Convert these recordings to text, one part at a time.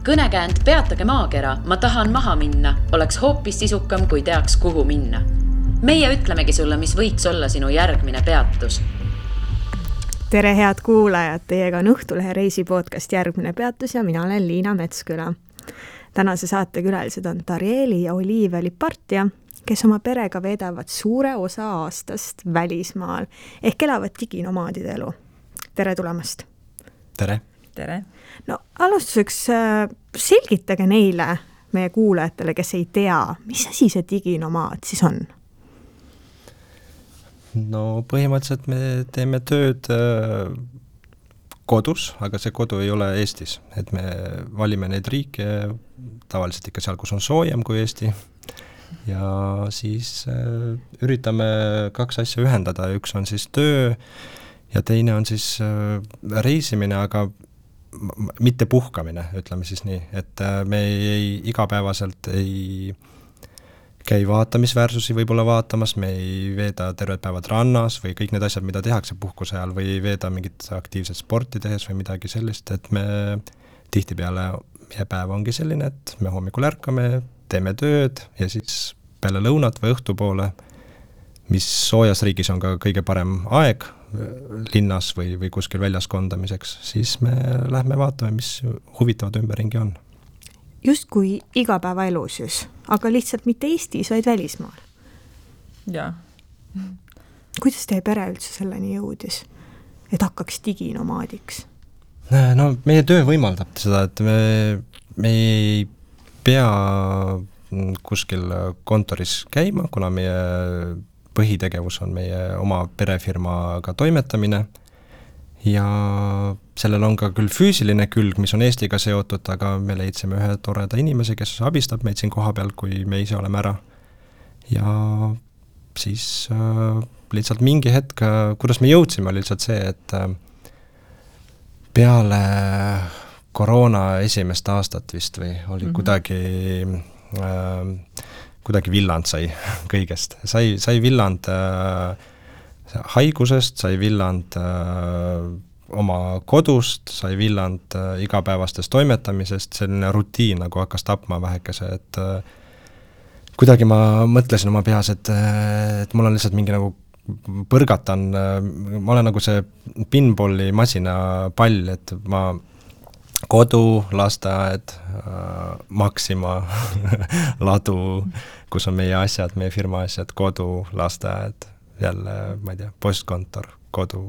Kõnekäänd Peatage maakera, ma tahan maha minna, oleks hoopis sisukam, kui teaks, kuhu minna. Meie ütlemegi sulle, mis võiks olla sinu järgmine peatus. Tere head kuulajad, teiega on Õhtulehe reisipodcast Järgmine peatus ja mina olen Liina Metsküla. Tänase saate külalised on Tarieli ja Olivia Lipartia, kes oma perega veedavad suure osa aastast välismaal ehk elavad diginomaadide elu. Tere tulemast! Tere! Tere! No alustuseks selgitage neile, meie kuulajatele, kes ei tea, mis asi see diginomaad siis on? No põhimõtteliselt me teeme tööd kodus, aga see kodu ei ole Eestis. Et me valime neid riike tavaliselt ikka seal, kus on soojem kui Eesti. Ja siis üritame kaks asja ühendada. Üks on siis töö ja teine on siis reisimine, aga mitte puhkamine, ütleme siis nii. Et me igapäevaselt ei käi vaatamisväärsusi võib-olla vaatamas, me ei veeda terved päevad rannas või kõik need asjad, mida tehakse puhkuse ajal või ei veeda mingit aktiivset sporti tehes või midagi sellist, et me tihtipeale meie päev ongi selline, et me hommikul ärkame, teeme tööd ja siis peale lõunat või õhtupoole, mis soojas riigis on ka kõige parem aeg linnas või kuskil väljas kondamiseks, siis me lähme vaatame, mis huvitavad ümberringi on. Just kui igapäevaelu siis, aga lihtsalt mitte Eestis, vaid välismaal. Jaa. Kuidas teie pere üldse selleni jõudis, et hakkaks diginomaadiks? No meie töö võimaldab seda, et me ei pea kuskil kontoris käima, kuna meie põhitegevus on meie oma perefirmaga toimetamine ja sellel on ka küll füüsiline külg, mis on Eestiga seotud, aga me leidsime ühe toreda inimese, kes abistab meid siin koha peal, kui me ise oleme ära. Ja siis lihtsalt mingi hetk, kuidas me jõudsime, oli lihtsalt see, et peale koroona esimest aastat vist või oli kuidagi villand sai kõigest. Sai villand haigusest, sai villand oma kodust, sai villand igapäevastest toimetamisest, selline rutiin nagu hakkas tapma vähekese, et kuidagi ma mõtlesin oma peas, et mul on lihtsalt mingi nagu põrgatan, ma olen nagu see pinballi masina pall, et ma kodu, lasteaed, Maxima, ladu, kus on meie asjad, meie firma asjad, kodu, lasteaed, jälle, ma ei tea, postkontor, kodu,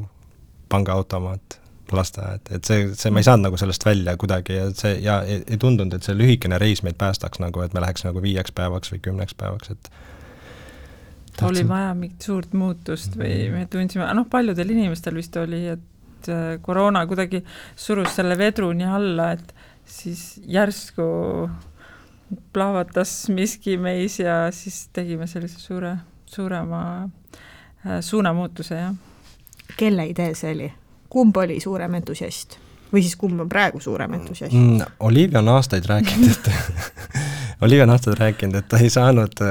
pangaautomaat, lasteaed, et see ma ei saanud nagu sellest välja kuidagi ja ei tundunud, et see lühikene reis meid päästaks nagu, et me läheks nagu 5 päevaks või 10 päevaks, et oli vaja mingit suurt muutust või me tundsime, paljudel inimestel vist oli, et koroona kuidagi surus selle vedru nii alla, et siis järsku plahvatas miski meis ja siis tegime sellise suurema suunamuutuse, jah. Kelle idee see oli? Kumb oli suurem entusiast? Või siis kumb on praegu suurem entusiast? Olivia on aastaid rääkinud, et ta ei saanud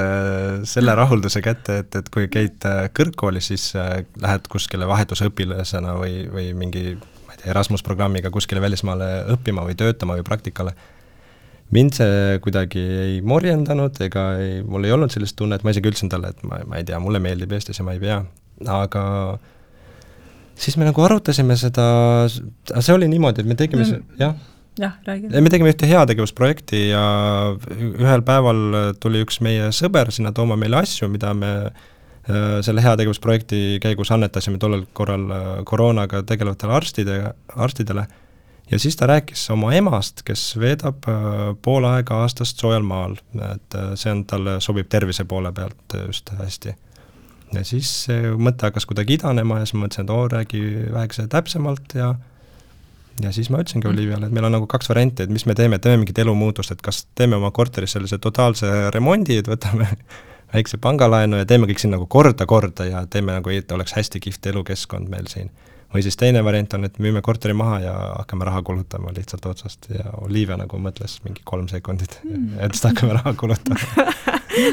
selle rahulduse kätte, et kui käid kõrgkooli, siis lähed kuskile vahetusõpilasena või mingi Erasmus-programmiga kuskile välismaale õppima või töötama või praktikale. Mind see kuidagi ei morjendanud, mul ei olnud sellist tunne, et ma isegi ütlesin talle, et ma ei tea, mulle meeldib Eestis ja ma ei pea, aga siis me nagu arutasime seda, see oli niimoodi, et me tegime me tegime ühte heategevusprojekti ja ühel päeval tuli üks meie sõber sinna tooma meile asju, mida me selle heategevusprojekti käigus annetasime tollel korral koroonaga tegelevatele arstidele ja siis ta rääkis oma emast, kes veedab pool aega aastast soojal maal, et see on talle sobib tervise poole pealt just hästi. Ja siis mõte hakkas kuidagi idanema ja siis mõtlesin, et räägi vähekese täpsemalt ja siis ma ütlesingi Oliviale, et meil on nagu 2 varianti, et mis me teeme mingit elumuutust, et kas teeme oma korteris sellise totaalse remondi, et võtame väikse pangalaenu ja teeme kõik siin nagu korda ja teeme nagu, et oleks hästi kihvt elukeskkond meil siin. Või siis teine variant on, et müüme korteri maha ja hakkame raha kulutama lihtsalt otsast ja Olivia nagu mõtles mingi 3 sekundit, et siis hakkame raha kulutama.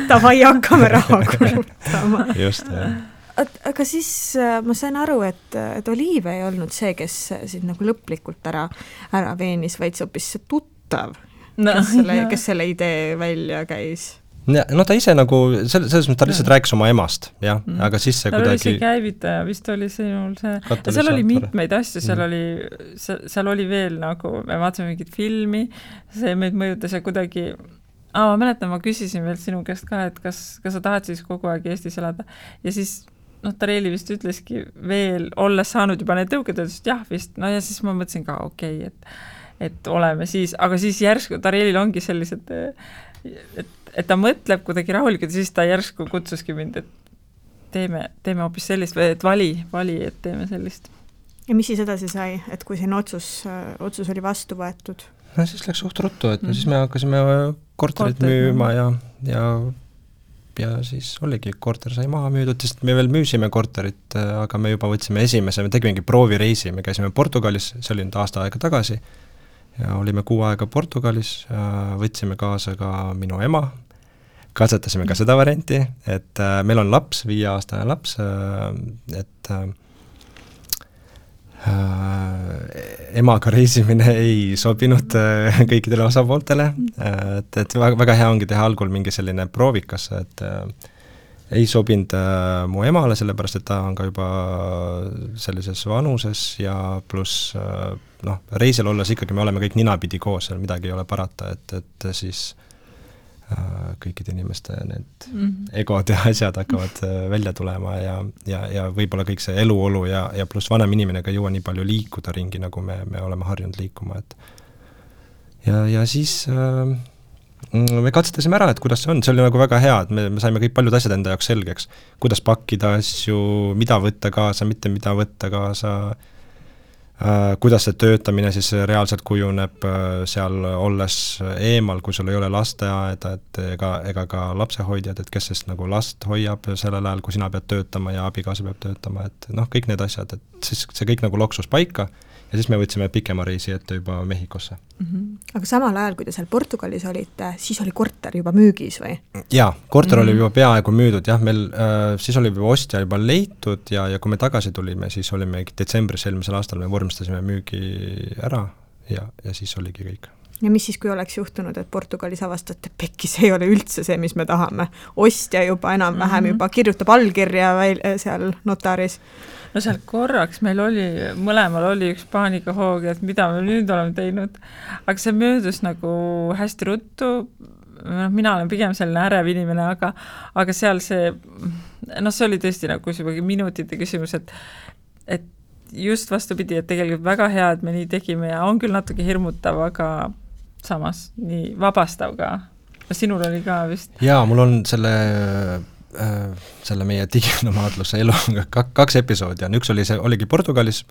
Davai, hakkame raha kulutama. Just, jah. Aga siis ma sain aru, et Olivia ei olnud see, kes siin nagu lõplikult ära veenis, vaid see hoopis tuttav, kes selle idee välja käis? No ta ise nagu, selles mõttes ta lihtsalt rääkis oma emast, jah, aga siis see kuidagi... oli see käivitaja, vist oli sinul see... Seal oli mitmeid asju, seal oli veel nagu, me vaatasime mingit filmi, see meid mõjutas ja kuidagi... ma mäletan, ma küsisin veel sinu käest ka, et kas sa tahad siis kogu aeg Eestis elada. Ja siis, Tareeli vist ütleski veel, olles saanud juba need tõuked, ütles, jah vist, no ja siis ma mõtlesin ka, okei, et oleme siis, aga siis järsku Tareelil ongi sellised, et ta mõtleb kuidagi rahulikult ja siis ta järsku kutsuski mind, et teeme hoopis sellist, või et vali, et teeme sellist. Ja mis siis edasi sai, et kui siin otsus oli vastu võetud? No siis läks suht ruttu, et siis me hakkasime korterit müüma ja siis oligi, korter sai maha müüdud, sest me veel müüsime korterit, aga me juba võtsime esimese, me tegimegi proovireisi, me käisime Portugalis, see oli nüüd aasta aega tagasi, ja olime 6 aega Portugalis, võtsime kaasa ka minu ema, katsetasime ka seda varianti, et meil on laps, 5-aastane laps, et emaga reisimine ei sobinud kõikidele osapooltele, et väga hea ongi teha algul mingi selline proovikas, et ei sobinud mu emale, sellepärast et ta on ka juba sellises vanuses ja pluss reisil olles ikkagi me oleme kõik ninapidi koos, seal midagi ei ole parata, et siis kõikide inimeste need egod ja asjad hakkavad välja tulema ja võib-olla kõik see eluolu ja pluss vanem inimene ka ei jõua nii palju liikuda ringi, nagu me oleme harjunud liikuma, et ja siis me katsetasime ära, et kuidas see on, see oli nagu väga hea, et me saime kõik paljud asjad enda jaoks selgeks, kuidas pakkida asju, mida võtta kaasa, mitte mida võtta kaasa, kuidas see töötamine siis reaalselt kujuneb seal olles eemal, kui sul ei ole lasteaeda, et ega ka lapsehoidjad, et kes sest nagu last hoiab sellel ajal, kui sina pead töötama ja abikaasa peab töötama, et kõik need asjad, et siis see kõik nagu loksus paika ja siis me võtsime pikema reisi ette juba Mehhikosse. Aga samal ajal, kui te seal Portugalis olite, siis oli korter juba müügis või? Jaa, korter oli juba peaaegu müüdud, jah, meil siis oli juba ostja juba leitud ja kui me tagasi tulime, siis olime detsembris eelmisel aastal, me vormistasime müügi ära ja siis oligi kõik. Ja mis siis, kui oleks juhtunud, et Portugalis avastate, pekkis ei ole üldse see, mis me tahame? Ostja juba enam-vähem juba kirjutab allkirja seal notaris. No seal korraks meil mõlemal oli üks paanikahoog, et mida me nüüd oleme teinud, aga see möödus nagu hästi ruttu, mina olen pigem selline ärev inimene, aga seal see oli tõesti nagu juba minutite küsimus, et just vastupidi, et tegelikult väga hea, et me nii tegime ja on küll natuke hirmutav, aga samas nii vabastav ka. Sinul oli ka vist? Jaa, mul on selle meie diginomaadluse elu 2 episoodi on, üks oligi Portugalis,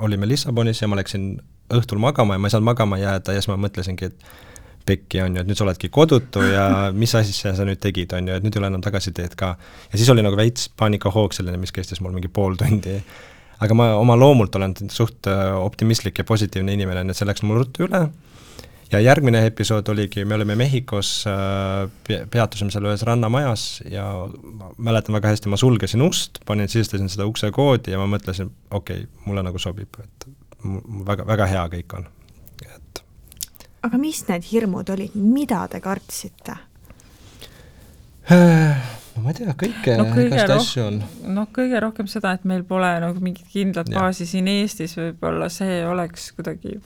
olime Lissabonis ja ma läksin õhtul magama ja ma ei saanud magama jääda ja siis ma mõtlesingi, et pekki on ju, et nüüd sa oledki kodutu ja mis asja sa nüüd tegid, on ju, et nüüd ei ole enam tagasiteed ka. Ja siis oli nagu veits paanikahoog selline, mis kestis mul mingi pool tundi. Aga ma oma loomult olen suht optimistlik ja positiivne inimene, et see läks mul ruttu üle. Ja järgmine episood oligi, me olime Mehhikos, peatusime seal ühes rannamajas ja mäletan väga hästi, ma sulgesin ust, sisestasin seda ukse koodi ja ma mõtlesin, okei, mulle nagu sobib, et väga, väga hea kõik on. Et... Aga mis need hirmud olid, mida te kartsite? Ma ei tea, kõike asju on. Kõige rohkem seda, et meil pole nagu mingit kindlat baasi siin Eestis, võib-olla see oleks kuidagi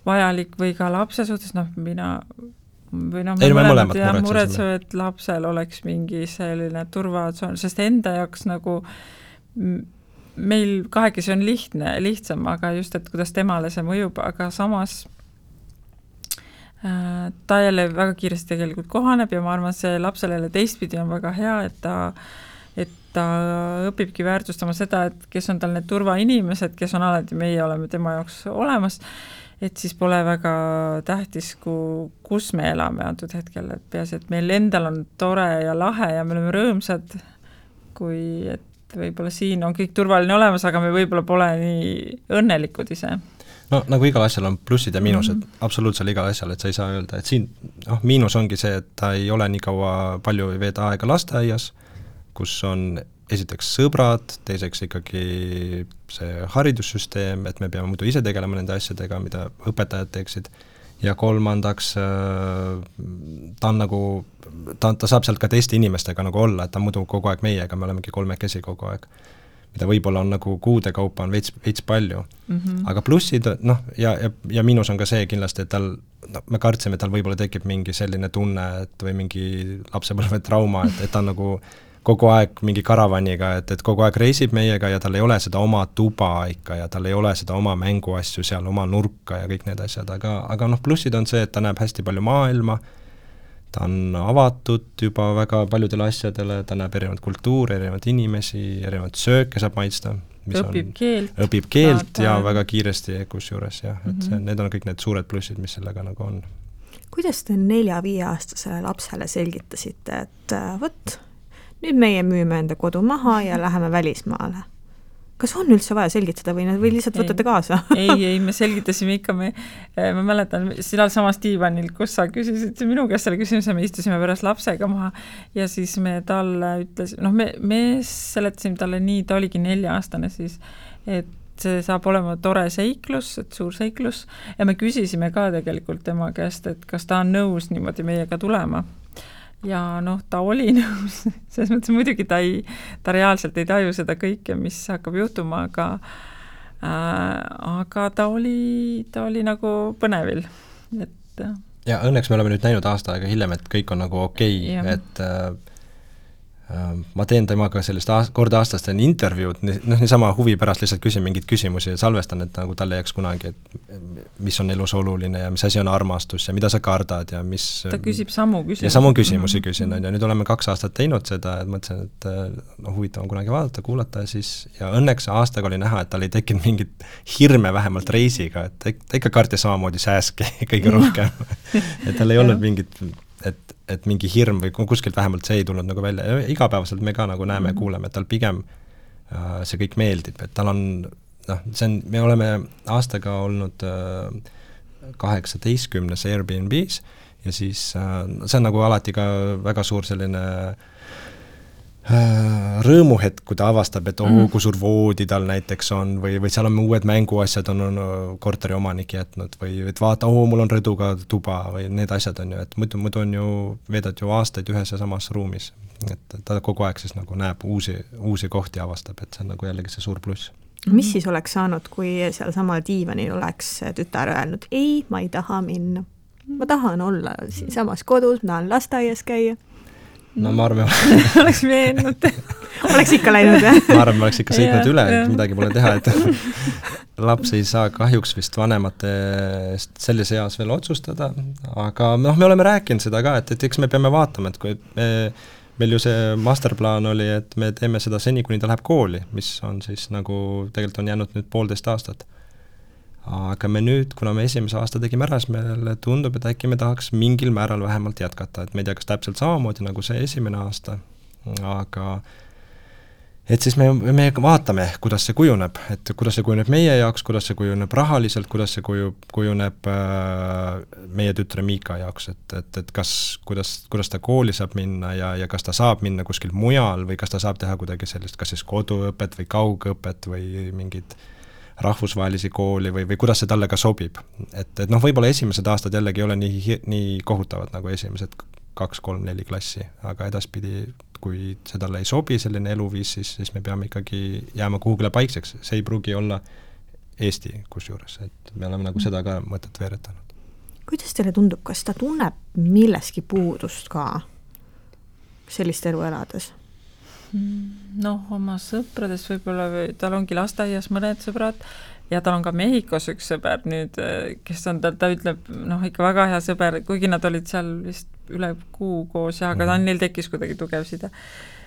vajalik või ka lapse suhtes, me muretseme, et lapsel oleks mingi selline turvatsoon, sest enda jaoks nagu meil kahekesi on lihtsam, aga just, et kuidas temale see mõjub, aga samas ta jälle väga kiiresti tegelikult kohaneb ja ma arvan, see lapsele teistpidi on väga hea, et ta õpibki väärtustama seda, et kes on tal need turvainimesed, kes on alati, meie oleme tema jaoks olemas, et siis pole väga tähtis, kus me elame antud hetkel, et peaasi, et meil endal on tore ja lahe ja me oleme rõõmsad, kui et võib-olla siin on kõik turvaline olemas, aga me võib-olla pole nii õnnelikud ise. No nagu igal asjal on plussid ja miinused, absoluutselt igal asjal, et sa ei saa öelda, et siin miinus ongi see, et ta ei ole nii kaua palju veeda aega lasteaias, kus on esiteks sõbrad, teiseks ikkagi see haridussüsteem, et me peame muidu ise tegelema nende asjadega, mida õpetajad teeksid, ja kolmandaks ta on nagu, ta saab sealt ka teiste inimestega nagu olla, et ta muidu kogu aeg meiega, me olemegi kolmekesi kogu aeg. Mida võib-olla on nagu kuude kaupa on veits palju. Aga plussid, noh, ja miinus on ka see kindlasti, et tal, me kartsime, et tal võib-olla tekib mingi selline tunne, et või mingi lapsepõlve trauma, et ta on nagu kogu aeg mingi karavaniga, et kogu aeg reisib meiega ja tal ei ole seda oma tuba ikka ja tal ei ole seda oma mänguasju seal, oma nurka ja kõik need asjad, aga noh, plussid on see, et ta näeb hästi palju maailma, ta on avatud juba väga paljudele asjadele, ta näeb erinevat kultuuri, erinevat inimesi, erinevat sööke saab maitsta. Õpib keelt ja väga kiiresti kusjuures, jah, et need on kõik need suured plussid, mis sellega nagu on. Kuidas te 4-5-aastasele lapsele selgitasite, et võt, nüüd meie müüme enda kodu maha ja läheme välismaale? Kas on üldse vaja selgitada või lihtsalt võtate kaasa? ei, me selgitasime ikka, ma mäletan, seal samas diivanil, kus sa küsisid minu käest selle küsimuse, me istusime pärast lapsega maha ja siis me talle ütles, me seletasime talle nii, ta oligi 4-aastane siis, et see saab olema tore seiklus, et suur seiklus ja me küsisime ka tegelikult tema käest, et kas ta on nõus niimoodi meiega tulema. Ja ta oli nõus, selles mõttes muidugi ta reaalselt ei taju seda kõike, mis hakkab juhtuma, aga ta oli nagu põnevil. Et ja õnneks me oleme nüüd näinud aasta aega hiljem, et kõik on nagu okei. Et ma teen temaga sellist korda aastast teen intervjuud, niisama huvi pärast lihtsalt küsin mingeid küsimusi ja salvestan, et nagu talle jääks kunagi, et mis on elus oluline ja mis asi on armastus ja mida sa kardad ja mis... Ta küsib samu küsimusi. Ja samu küsimusi küsin, ja nüüd oleme 2 aastat teinud seda, et mõtlesin, et huvitav on kunagi vaadata, kuulata ja siis, ja õnneks aastaga oli näha, et tal ei tekkinud mingit hirme vähemalt reisiga, et ta ikka kartis samamoodi sääski kõige rohkem. Et tal ei olnud mingit, et mingi hirm või kuskilt vähemalt see ei tulnud nagu välja. Igapäevaselt me ka nagu näeme ja kuuleme, et tal pigem see kõik meeldib, et tal on, me oleme aastaga olnud 18 Airbnbs ja siis see on nagu alati ka väga suur selline rõõmuhetk, kui ta avastab, et kui suur voodi tal näiteks on või seal on uued mänguasjad on korteri omanik jätnud või et vaata, mul on rõduga tuba või need asjad on ju, et muidu on ju, veedad ju aastaid ühes ja samas ruumis, et ta kogu aeg siis nagu näeb uusi kohti avastab, et see on nagu jällegi see suur pluss. Mis siis oleks saanud, kui seal samal diivanil oleks tütar öelnud, ei, ma ei taha minna, ma tahan olla siin samas kodus, ma tahan lasteaias käia? No ma arvan, oleks veennud. Oleks ikka läinud, jah? Ma arvan, ma oleks ikka sõitnud üle, et midagi pole teha, et laps ei saa kahjuks vist vanemate eest selles eas veel otsustada, aga me oleme rääkinud seda ka, et eks me peame vaatama, et kui meil ju see masterplaan oli, et me teeme seda seni, kuni ta läheb kooli, mis on siis nagu tegelikult on jäänud nüüd 1,5 aastat. Aga me nüüd, kuna me esimese aasta tegime ära, siis meile tundub, et äkki me tahaks mingil määral vähemalt jätkata, et me ei tea, kas täpselt samamoodi nagu see esimene aasta, aga et siis me vaatame, kuidas see kujuneb, et kuidas see kujuneb meie jaoks, kuidas see kujuneb rahaliselt, kuidas see kujuneb meie tütre Miika jaoks, et kuidas ta kooli saab minna ja kas ta saab minna kuskil mujal või kas ta saab teha kuidagi sellist, kas siis koduõpet või kaugõpet või mingid rahvusvahelisi kooli või kuidas see talle ka sobib. Et võib-olla esimesed aastad jällegi ei ole nii kohutavad nagu esimesed 2, 3, 4 klassi, aga edaspidi, kui see talle ei sobi selline eluviis, siis me peame ikkagi jääma kuhugile paikseks. See ei pruugi olla Eesti kusjuures, et me oleme nagu seda ka mõtet veeretanud. Kuidas teile tundub, kas ta tunneb milleski puudust ka sellist elu elades? Oma sõpradest võib-olla, tal ongi lasteaias mõned sõbrad ja tal on ka Mehhikos üks sõber nüüd, kes on, ta ütleb, ikka väga hea sõber, kuigi nad olid seal vist üle kuu koos ja aga neil tekkis kuidagi tugev side.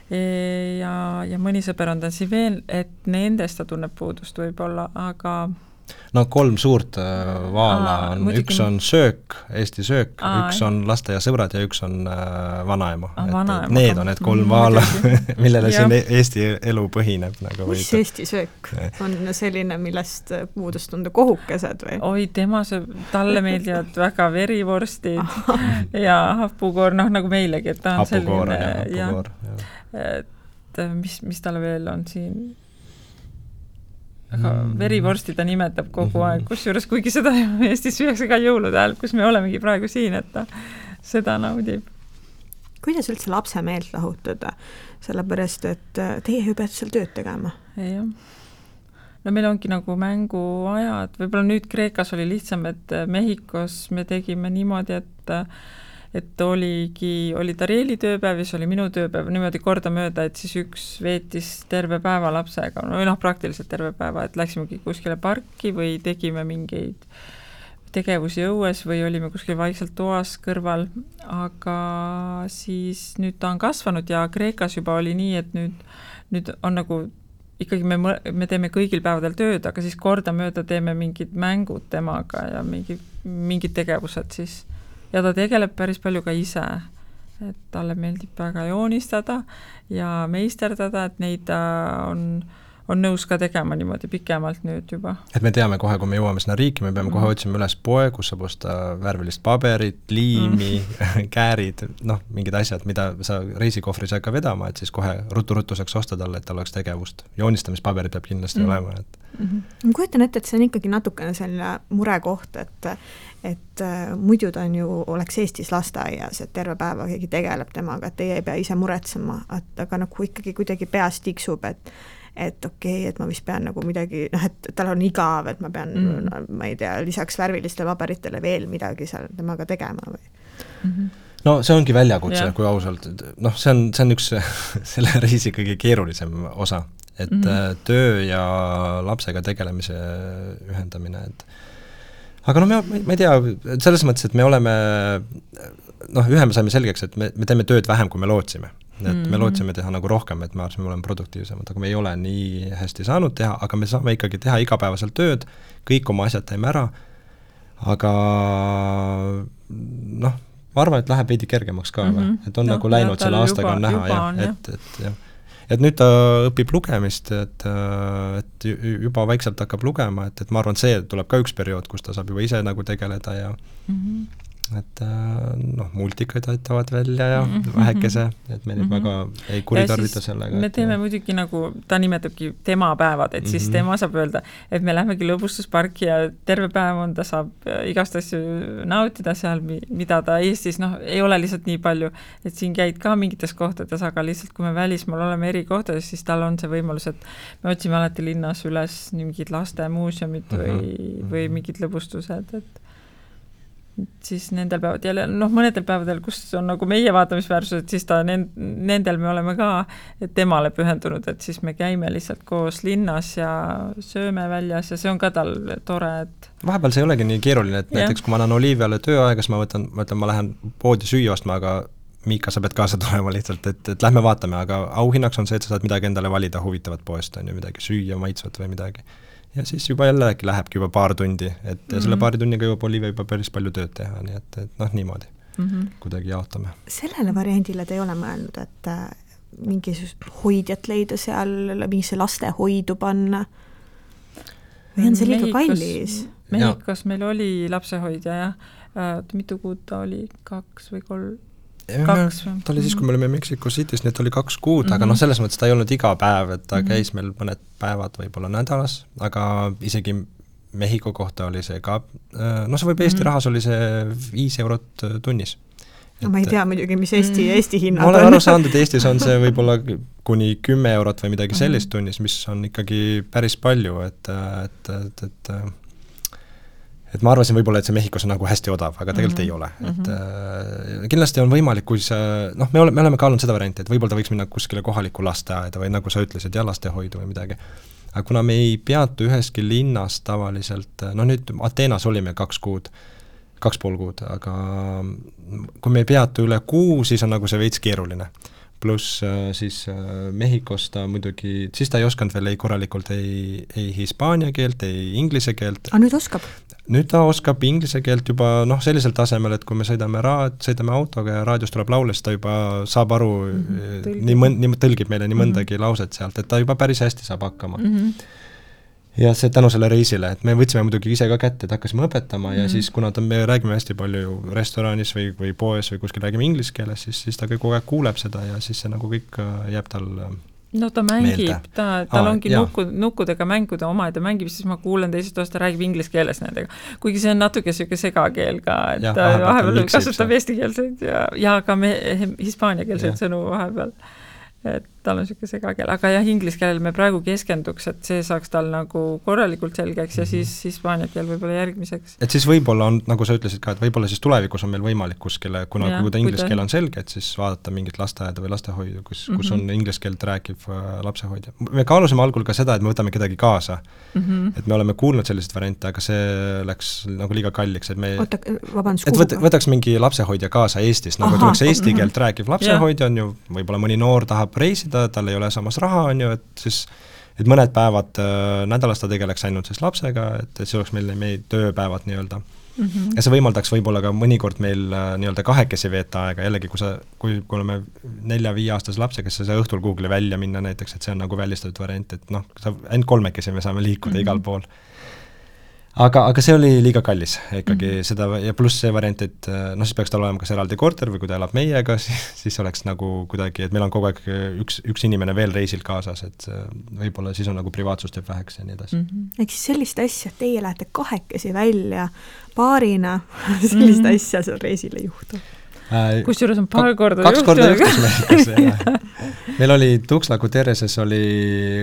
Ja mõni sõber on ta siin veel, et nendest ta tunneb puudust võib-olla, aga 3 suurt vaala on, üks on söök, Eesti söök, üks on laste ja sõbrad ja üks on vanaema. Need on need 3 vaala, millele siin Eesti elu põhineb. Mis Eesti söök on selline, millest puudust tunda kohukesed või? Oi, talle meeldivad väga verivorstid ja hapukoor, nagu meilegi, et ta on hapukoor, selline. Et mis talle veel on siin? aga verivorsti ta nimetab kogu aeg, kusjuures kuigi seda Eestis süüakse ka jõulude ajal, kus me olemegi praegu siin, et ta seda naudib. Kuidas üldse lapse meelt lahutada? Sellepärast, et teie ju peate seal tööd tegema. Jah. No meil ongi nagu mänguajad, võib-olla nüüd Kreekas oli lihtsam, et Mehhikos me tegime niimoodi, et oli Tarieli tööpäev ja siis oli minu tööpäev niimoodi kordamööda, et siis üks veetis terve päeva lapsega, või praktiliselt terve päeva, et läksimegi kuskile parki või tegime mingeid tegevusi õues või olime kuskil vaikselt toas kõrval, aga siis nüüd ta on kasvanud ja Kreekas juba oli nii, et nüüd on nagu ikkagi me teeme kõigil päevadel tööd, aga siis kordamööda teeme mingid mängud temaga ja mingid tegevused siis. Ja ta tegeleb päris palju ka ise, et talle meeldib väga joonistada ja meisterdada, et neid ta on nõus ka tegema niimoodi pikemalt nüüd juba. Et me teame kohe, kui me jõuame sinna riiki, me peame kohe otsima üles poe, kus saab osta värvilist paberit, liimi, käärid, mingid asjad, mida sa reisikohvri saad ka vedama, et siis kohe rutu saaks osta talle, et tal oleks tegevust. Joonistamispaberid peab kindlasti olema. Ma kujutan ette, et see on ikkagi natukene selline murekoht, et muidu ta on ju, oleks Eestis lasteaias, et terve päeva keegi tegeleb temaga, et teie ei pea ise muretsema, aga nagu ikkagi kuidagi peas tiksub, et okei, et ma vist pean nagu midagi, et tal on igav, et ma pean, ma ei tea, lisaks värvilistele paberitele veel midagi seal temaga tegema või? No see ongi väljakutse, kui ausalt. See on üks selle reisi kõige keerulisem osa, et töö ja lapsega tegelemise ühendamine, aga ma ei tea, selles mõttes, et me oleme, ühe me saime selgeks, et me teeme tööd vähem, kui me lootsime. Et me lootsime teha nagu rohkem, et me oleme produktiivsemad, aga me ei ole nii hästi saanud teha, aga me saame ikkagi teha igapäevaselt tööd, kõik oma asjad teeme ära, aga ma arvan, et läheb veidi kergemaks ka, et on nagu läinud selle aastaga on näha, et nüüd ta õpib lugemist, et juba vaikselt hakkab lugema, et ma arvan, see tuleb ka üks periood, kus ta saab juba ise nagu tegeleda ja et multikaid aitavad välja ja vähekese, et me nüüd väga ei kuritarvita sellega. Me teeme muidugi nagu, ta nimetabki tema päevad, et siis tema saab öelda, et me lähmegi lõbustusparki ja terve päev ta saab igast asju nautida seal, mida ta Eestis, ei ole lihtsalt nii palju, et siin käid ka mingites kohtades, aga lihtsalt kui me välismaal oleme eri kohtades, siis tal on see võimalus, et me otsime alati linnas üles mingid lastemuuseumid või mingid lõbustused, et siis nendel päevad jälle, mõnedel päevadel, kus on nagu meie vaatamisväärsused, siis nendel me oleme ka temale pühendunud, et siis me käime lihtsalt koos linnas ja sööme väljas ja see on ka tal tore, et vahepeal see ei olegi nii keeruline, et näiteks kui ma annan Oliiviale tööaega, siis ma lähen poodi süüa ostma, aga Miika, sa pead kaasa tulema lihtsalt, et lähme vaatame, aga auhinnaks on see, et sa saad midagi endale valida huvitavat poest, on ju midagi süüa, maitsvat või midagi. Ja siis juba jällegi lähebki juba paar tundi, et selle paari tunniga jõuab Olivia juba päris palju tööd teha, nii et niimoodi kuidagi jaotame. Sellele variandile te ei ole mõelnud, et mingisugust hoidjat leida seal, mingisse lastehoidu panna? Või on see liiga kallis? Mehhikos meil oli lapsehoidja, mitu kuud ta oli, 2 või 3? Ta oli siis, kui me olime Mexico City's, nii et oli 2 kuud, aga selles mõttes ta ei olnud iga päev, et ta käis meil mõned päevad võib-olla nädalas, aga isegi Mehhiko kohta oli see ka, see võib Eesti rahas oli see 5 eurot tunnis. Ma ei tea muidugi, mis Eesti hinnad on. Ma olen aru saanud, et Eestis on see võib-olla kuni 10 eurot või midagi sellist tunnis, mis on ikkagi päris palju, et ma arvasin võib-olla, et see Mehhikos on nagu hästi odav, aga tegelikult ei ole. Et kindlasti on võimalik, kui me oleme kaalunud seda varianti, et võib-olla ta võiks minna kuskile kohalikku lasteaeda või nagu sa ütlesid, lastehoidu või midagi. Aga kuna me ei peatu üheski linnas tavaliselt, nüüd Ateenas olime 2 kuud, 2,5 kuud, aga kui me ei peatu üle 6, siis on nagu see veits keeruline. Pluss siis Mehhikos ta muidugi, siis ta ei osanud veel korralikult ei hispaania keelt, ei inglise keelt. A nüüd oskab? Nüüd ta oskab inglise keelt juba sellisel tasemel, et kui me sõidame autoga ja raadios tuleb laule, siis ta juba saab aru, tõlgib meile nii mõndagi lauset sealt, et ta juba päris hästi saab hakkama. Ja see tänu selle reisile, et me võtsime muidugi ise ka kätte, et hakkasime õpetama ja siis kuna me räägime hästi palju restoranis või poes või kuskil räägime inglise keeles, siis ta kogu aeg kuuleb seda ja siis see nagu kõik jääb tal no ta mängib, tal ongi nukkudega mängu, ta omaette mängib, siis ma kuulen teisest osta, räägib inglise keeles nendega. Kuigi see on natuke selline segakeel ka, et ta vahepeal kasutab eestikeelseid ja ka hispaaniakeelseid sõnu vahepeal. Et tal on selline segakeel, aga jah, inglise keelel me praegu keskenduks, et see saaks tal nagu korralikult selgeks ja siis hispaania keel võib-olla järgmiseks. Et siis võib-olla on, nagu sa ütlesid ka, et võib-olla siis tulevikus on meil võimalik kuskile, kuna kui ta inglise keel on selge, et siis vaadata mingit lasteaeda või lastehoidu, kus on inglise keelt rääkiv lapsehoidja. Me kaalusime algul ka seda, et me võtame kedagi kaasa. Et me oleme kuulnud sellised variante, aga see läks nagu liiga kalliks, et me võtaks mingi lapsehoidja kaasa Eestis, nagu tuleks eesti keelt rääkiv lapsehoidja on ju, võib-olla mõni noor tahab reisida, tal ei ole samas raha, on ju, et siis et mõned päevad nädalas ta tegeleks ainult siis lapsega, et see oleks meil tööpäevad nii-öelda. Ja see võimaldaks võib-olla ka mõnikord meil nii-öelda kahekesi veeta aega, jällegi kui oleme 4-5 aastase lapsega, siis sa õhtul Google'i välja minna näiteks, et see on nagu välistatud variant, et noh, ainult 3 me saame liikuda igal pool. Aga see oli liiga kallis ikkagi seda ja pluss see variant, et noh, siis peaks tal olema kas eraldi korter või kui ta elab meiega, siis oleks nagu kuidagi, et meil on kogu aeg üks inimene veel reisil kaasas, et võib-olla siis on nagu privaatsust jääb väheks ja nii edasi. Ehk siis sellist asja, et teie lähete kahekesi välja paarina, sellist asja seal reisil ei juhtu. Kusjuures on paar korda kaks korda juhtus meil oli Tuxtla Guterreses oli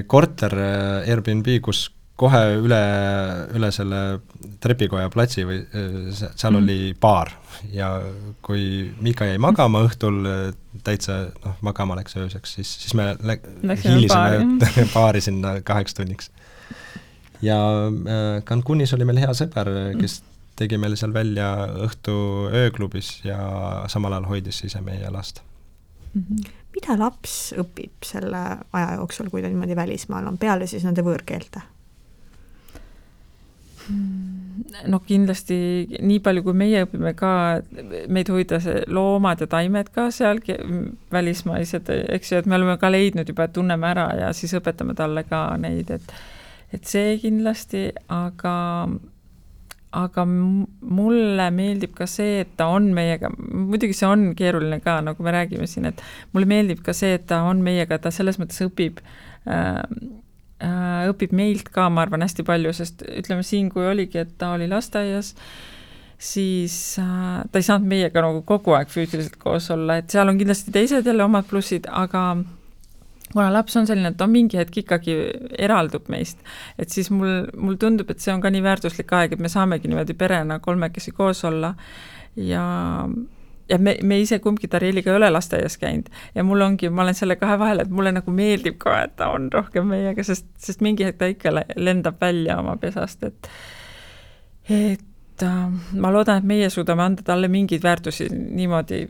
korter Airbnb, kus kohe üle selle trepikoja platsi või seal oli baar ja kui Mika jäi magama õhtul täitsa magama läks ööseks, siis me hiilisime baari sinna 8 tunniks. Ja Cancunis oli meil hea sõber, kes tegi meil seal välja õhtu ööklubis ja samal ajal hoidis ise meie last. Mida laps õpib selle aja jooksul, kui ta niimoodi välismaal on, peale siis nende võõrkeelte? No kindlasti nii palju, kui meie õpime ka, meid hoida see loomad ja taimed ka seal välismaised, eks ju, et me oleme ka leidnud juba, et tunneme ära ja siis õpetame talle ka neid, et see kindlasti, aga mulle meeldib ka see, et ta on meiega, muidugi see on keeruline ka, nagu me räägime siin, et mulle meeldib ka see, et ta on meiega, ta selles mõttes õpib meilt ka, ma arvan, hästi palju, sest ütleme siin, kui oligi, et ta oli lasteaias, siis ta ei saanud meiega nagu kogu aeg füüsiliselt koos olla, et seal on kindlasti teised jälle omad plussid, aga kuna laps on selline, et ta mingi hetk ikkagi eraldub meist, et siis mul tundub, et see on ka nii väärtuslik aeg, et me saamegi niimoodi perena 3 koos olla ja me ise kumbki Tarieliga ei ole lasteaias käinud ja ma olen selle kahe vahel, et mulle nagu meeldib ka, et ta on rohkem meiega, sest mingi hetk ta ikka lendab välja oma pesast, et ma loodan, et meie suudame anda talle mingeid väärtusi niimoodi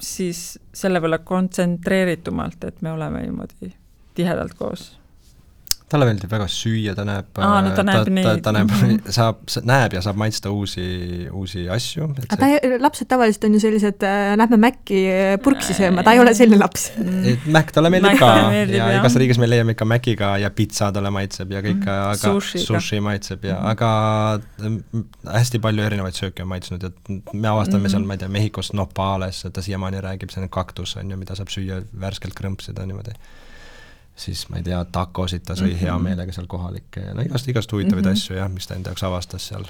siis selle võlla kontsentreeritumalt, et me oleme niimoodi tihedalt koos. Talle meeldib väga süüa, ta näeb, näeb ja saab maitsta uusi asju. Lapsed tavaliselt on ju sellised, lähme Mäkki purksi sööma, ta ei ole selline laps. Mäkk talle meeldib ka ja igas riigis me leiame ikka Mäkiga ja pizza talle maitseb ja kõik, aga sushi maitseb ja aga hästi palju erinevaid sööke on maitsnud ja me avastame seal, ma ei tea, Mehhikos nopales, ta siiamaani räägib, see on kaktus, on ju, mida saab süüa värskelt krõmpsida niimoodi. Siis ma ei tea, takosid ta sõi hea meelega seal kohalikke ja igast huvitavaid asju, jah, mis ta enda jaoks avastas seal.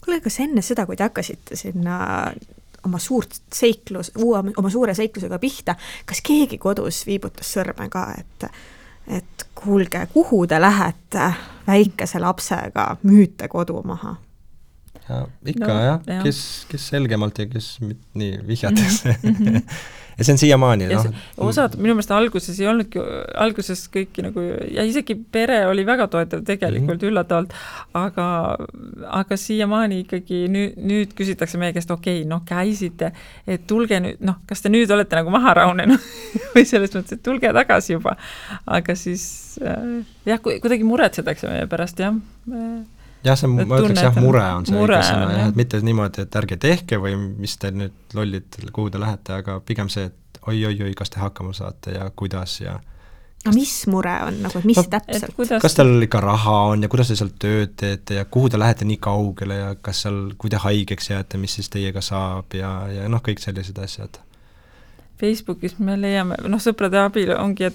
Kuule, kas enne seda, kui te hakkasite sinna oma suure seiklusega pihta, kas keegi kodus viibutas sõrme ka, et kuulge, kuhu te lähete väikese lapsega, müüte kodu maha? Ja, ikka kes selgemalt ja kes nii vihjates. Ja see on siiamaani. Osad, minu meelest alguses ei olnudki, alguses kõiki nagu, ja isegi pere oli väga toetav tegelikult üllatavalt, aga siiamaani ikkagi nüüd küsitakse meie käest, okei, käisite, et tulge nüüd, kas te nüüd olete nagu maha raunenud või selles mõttes, et tulge tagasi juba. Aga siis, kuidagi muretsetakse meie pärast, jah. Jah, ma ütleks, mure on see õigesõna, et mitte niimoodi, et ärge tehke või mis te nüüd lollid, kuhu te lähete, aga pigem see, et oi, kas te hakkama saate ja kuidas ja... mis mure on, nagu, mis täpselt? Kas teil ikka raha on ja kuidas te seal tööd teete ja kuhu te lähete nii kaugele ja kas seal, kui te haigeks jääte, mis siis teiega saab ja kõik sellised asjad? Facebookis me leiame, sõprade abil ongi,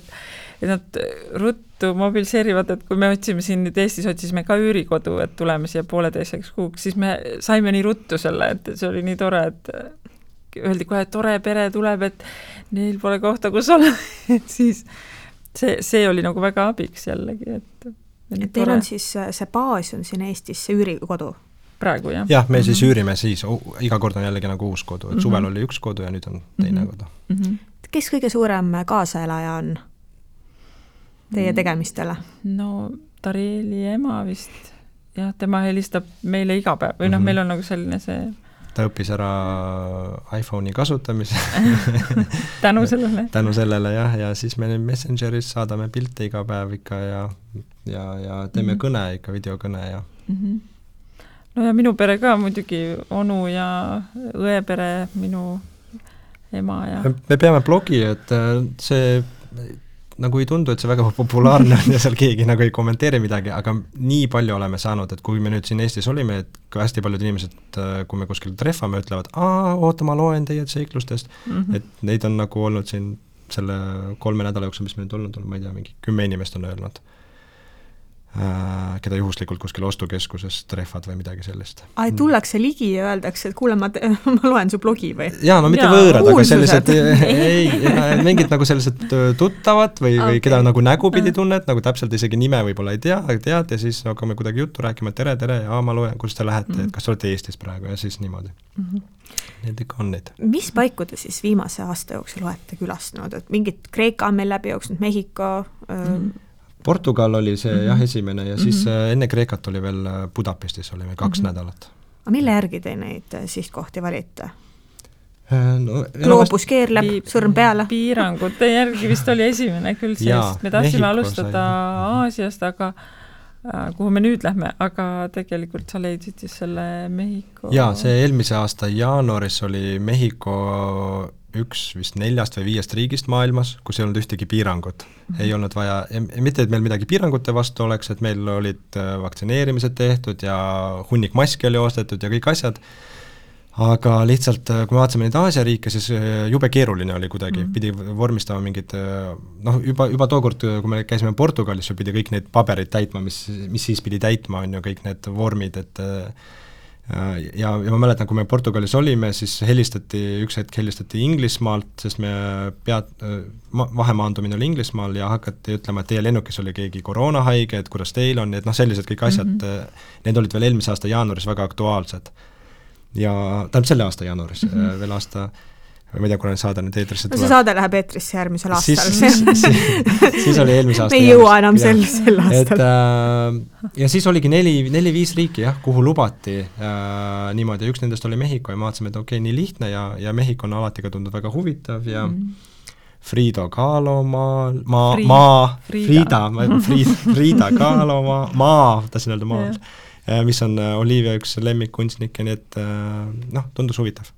nad ruttu mobiliseerivad, et kui me otsime siin nüüd Eestis, otsisime ka üürikodu, et tuleme siia 1,5 kuuks, siis me saime nii ruttu selle, et see oli nii tore, et öeldi kohe, et tore pere tuleb, et neil pole kohta, kus olla, et siis see oli nagu väga abiks jällegi, et teil on siis see baas on siin Eestis, see üürikodu? Praegu, jah. Jah, me siis üürime siis, iga kord on jällegi nagu uus kodu, et suvel oli üks kodu ja nüüd on teine kodu. Kes kõige suurem kaasaelaja on teie tegemistele? No Tarieli ema vist, jah, tema helistab meile iga päev või meil on nagu selline see... Ta õppis ära iPhone'i kasutamise. Tänu sellele, jah, ja siis me Messengeris saadame pilte iga päev ikka ja teeme kõne ikka, videokõne ja... No ja minu pere ka muidugi, onu ja õepere, minu ema ja... Me peame blogi, et see nagu ei tundu, et see väga populaarne on ja seal keegi nagu ei kommenteeri midagi, aga nii palju oleme saanud, et kui me nüüd siin Eestis olime, et ka hästi paljud inimesed, kui me kuskil treffame, ütlevad, oota, ma loen teie seiklustest, et neid on nagu olnud siin selle 3 nädala jooksul, mis me nüüd olnud, ma ei tea, mingi 10 inimest on öelnud, keda juhuslikult kuskil ostukeskuses treffad või midagi sellist. Tullakse ligi ja öeldakse, et kuule, ma loen su blogi või? Jaa, no mitte võõrad, aga sellised, mingid nagu sellised tuttavad või keda nagu nägu pidi tunned, nagu täpselt isegi nime võib-olla ei tea, aga tead ja siis hakkame kuidagi juttu rääkima, tere, ja ma loen, kus te lähete, et kas te olete Eestis praegu ja siis niimoodi. Need ikka on neid. Mis paiku te siis viimase aasta jooksul olete külastanud, et mingid Kreeka on meil läbi jooksnud, Mehhiko... Portugal oli see jah esimene ja siis enne Kreekat oli veel Budapestis olime 2 nädalat. Aga mille järgi te neid sihtkohti valite? No, Gloobus keerleb, sõrm peale? Piirangute järgi vist oli esimene küll seest. Me tahtsime alustada Aasiast, aga kuhu me nüüd lähme, aga tegelikult sa leidsid siis selle Mehhiko... Jaa, see eelmise aasta jaanuaris oli Mehhiko üks vist 4 või 5 riigist maailmas, kus ei olnud ühtegi piirangut. Ei olnud vaja, mitte et meil midagi piirangute vastu oleks, et meil olid vaktsineerimised tehtud ja hunnik maski oli ostetud ja kõik asjad, aga lihtsalt, kui me vaatasime neid Aasia riike, siis jube keeruline oli kuidagi, pidi vormistama mingid, juba tookord, kui me käisime Portugalis, pidi kõik need paberid täitma, mis siis pidi täitma, on ju kõik need vormid, et ja ma mäletan, kui me Portugalis olime, siis üks hetk helistati Inglismaalt, sest me vahemaandumine oli Inglismaal ja hakati ütlema, et teie lennukis oli keegi koroonahaige, et kuidas teil on, et sellised kõik asjad, need olid veel eelmise aasta jaanuaris väga aktuaalsed. Ja tähendab selle aasta jaanuaris, veel aasta, ma ei tea, kuna saade nüüd eetrisse tuleb. See saade läheb eetrisse järgmisel aastal. Siis oli eelmise aasta me ei jõua enam sel aastal. Ja siis oligi 4-5 riiki, kuhu lubati niimoodi. Üks nendest oli Mehhiko ja ma vaatasime, et okei, nii lihtne ja Mehhiko on alati ka tundnud väga huvitav ja Frida Kahlo Frida Kahlo tahtsin öelda maal, mis on Olivia üks lemmikkunstnik ja nii, et tundus huvitav.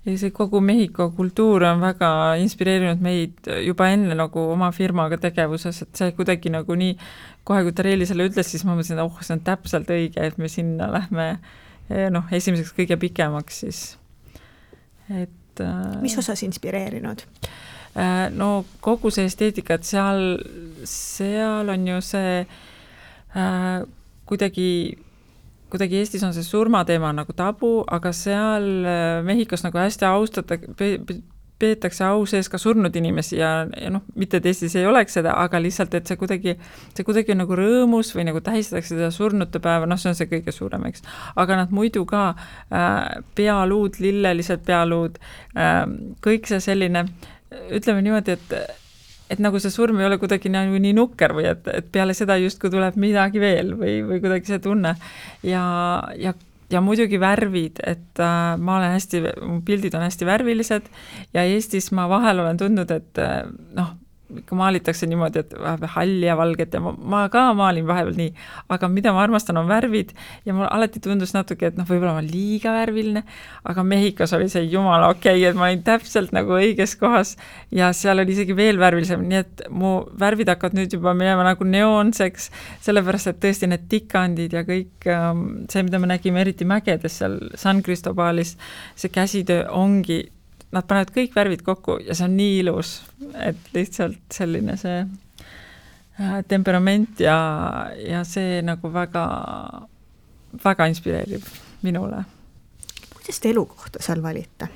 Ja see kogu Mehhiko kultuur on väga inspireerinud meid juba enne nagu oma firmaga tegevuses, et see kuidagi nagu nii, kohe kui Tarieli selle ütles, siis ma mõtlesin, et see on täpselt õige, et me sinna lähme esimeseks kõige pikemaks siis. Et, mis osas inspireerinud? No kogu see esteetika, et seal on ju see kuidagi Eestis on see surmateema nagu tabu, aga seal Mehhikos nagu hästi peetakse au sees ka surnud inimesi ja mitte et Eestis ei oleks seda, aga lihtsalt, et see kuidagi on nagu rõõmus või nagu tähistatakse seda surnute päeva, see on see kõige suurem, eks. Aga nad muidu ka pealuud, lillelised pealuud, kõik see selline, ütleme niimoodi, et nagu see surm ei ole kuidagi nii nukker või et peale seda justkui tuleb midagi veel või kuidagi see tunne. Ja muidugi värvid, et ma olen mu pildid on hästi värvilised ja Eestis ma vahel olen tundnud, et ikka maalitakse niimoodi, et halli ja valget ja ma ka maalin vahepeal nii, aga mida ma armastan on värvid ja mul alati tundus natuke, et võib-olla ma liiga värviline, aga Mehhikos oli see jumala okei, et ma olin täpselt nagu õiges kohas ja seal oli isegi veel värvilisem, nii et mu värvid hakkavad nüüd juba minema nagu neoonseks, sellepärast, et tõesti need tikandid ja kõik see, mida me nägime eriti mägedes seal San Cristobalis, see käsitöö ongi nad panevad kõik värvid kokku ja see on nii ilus, et lihtsalt selline see temperament ja see nagu väga, väga inspireerib minule. Kuidas te elukohta seal valite?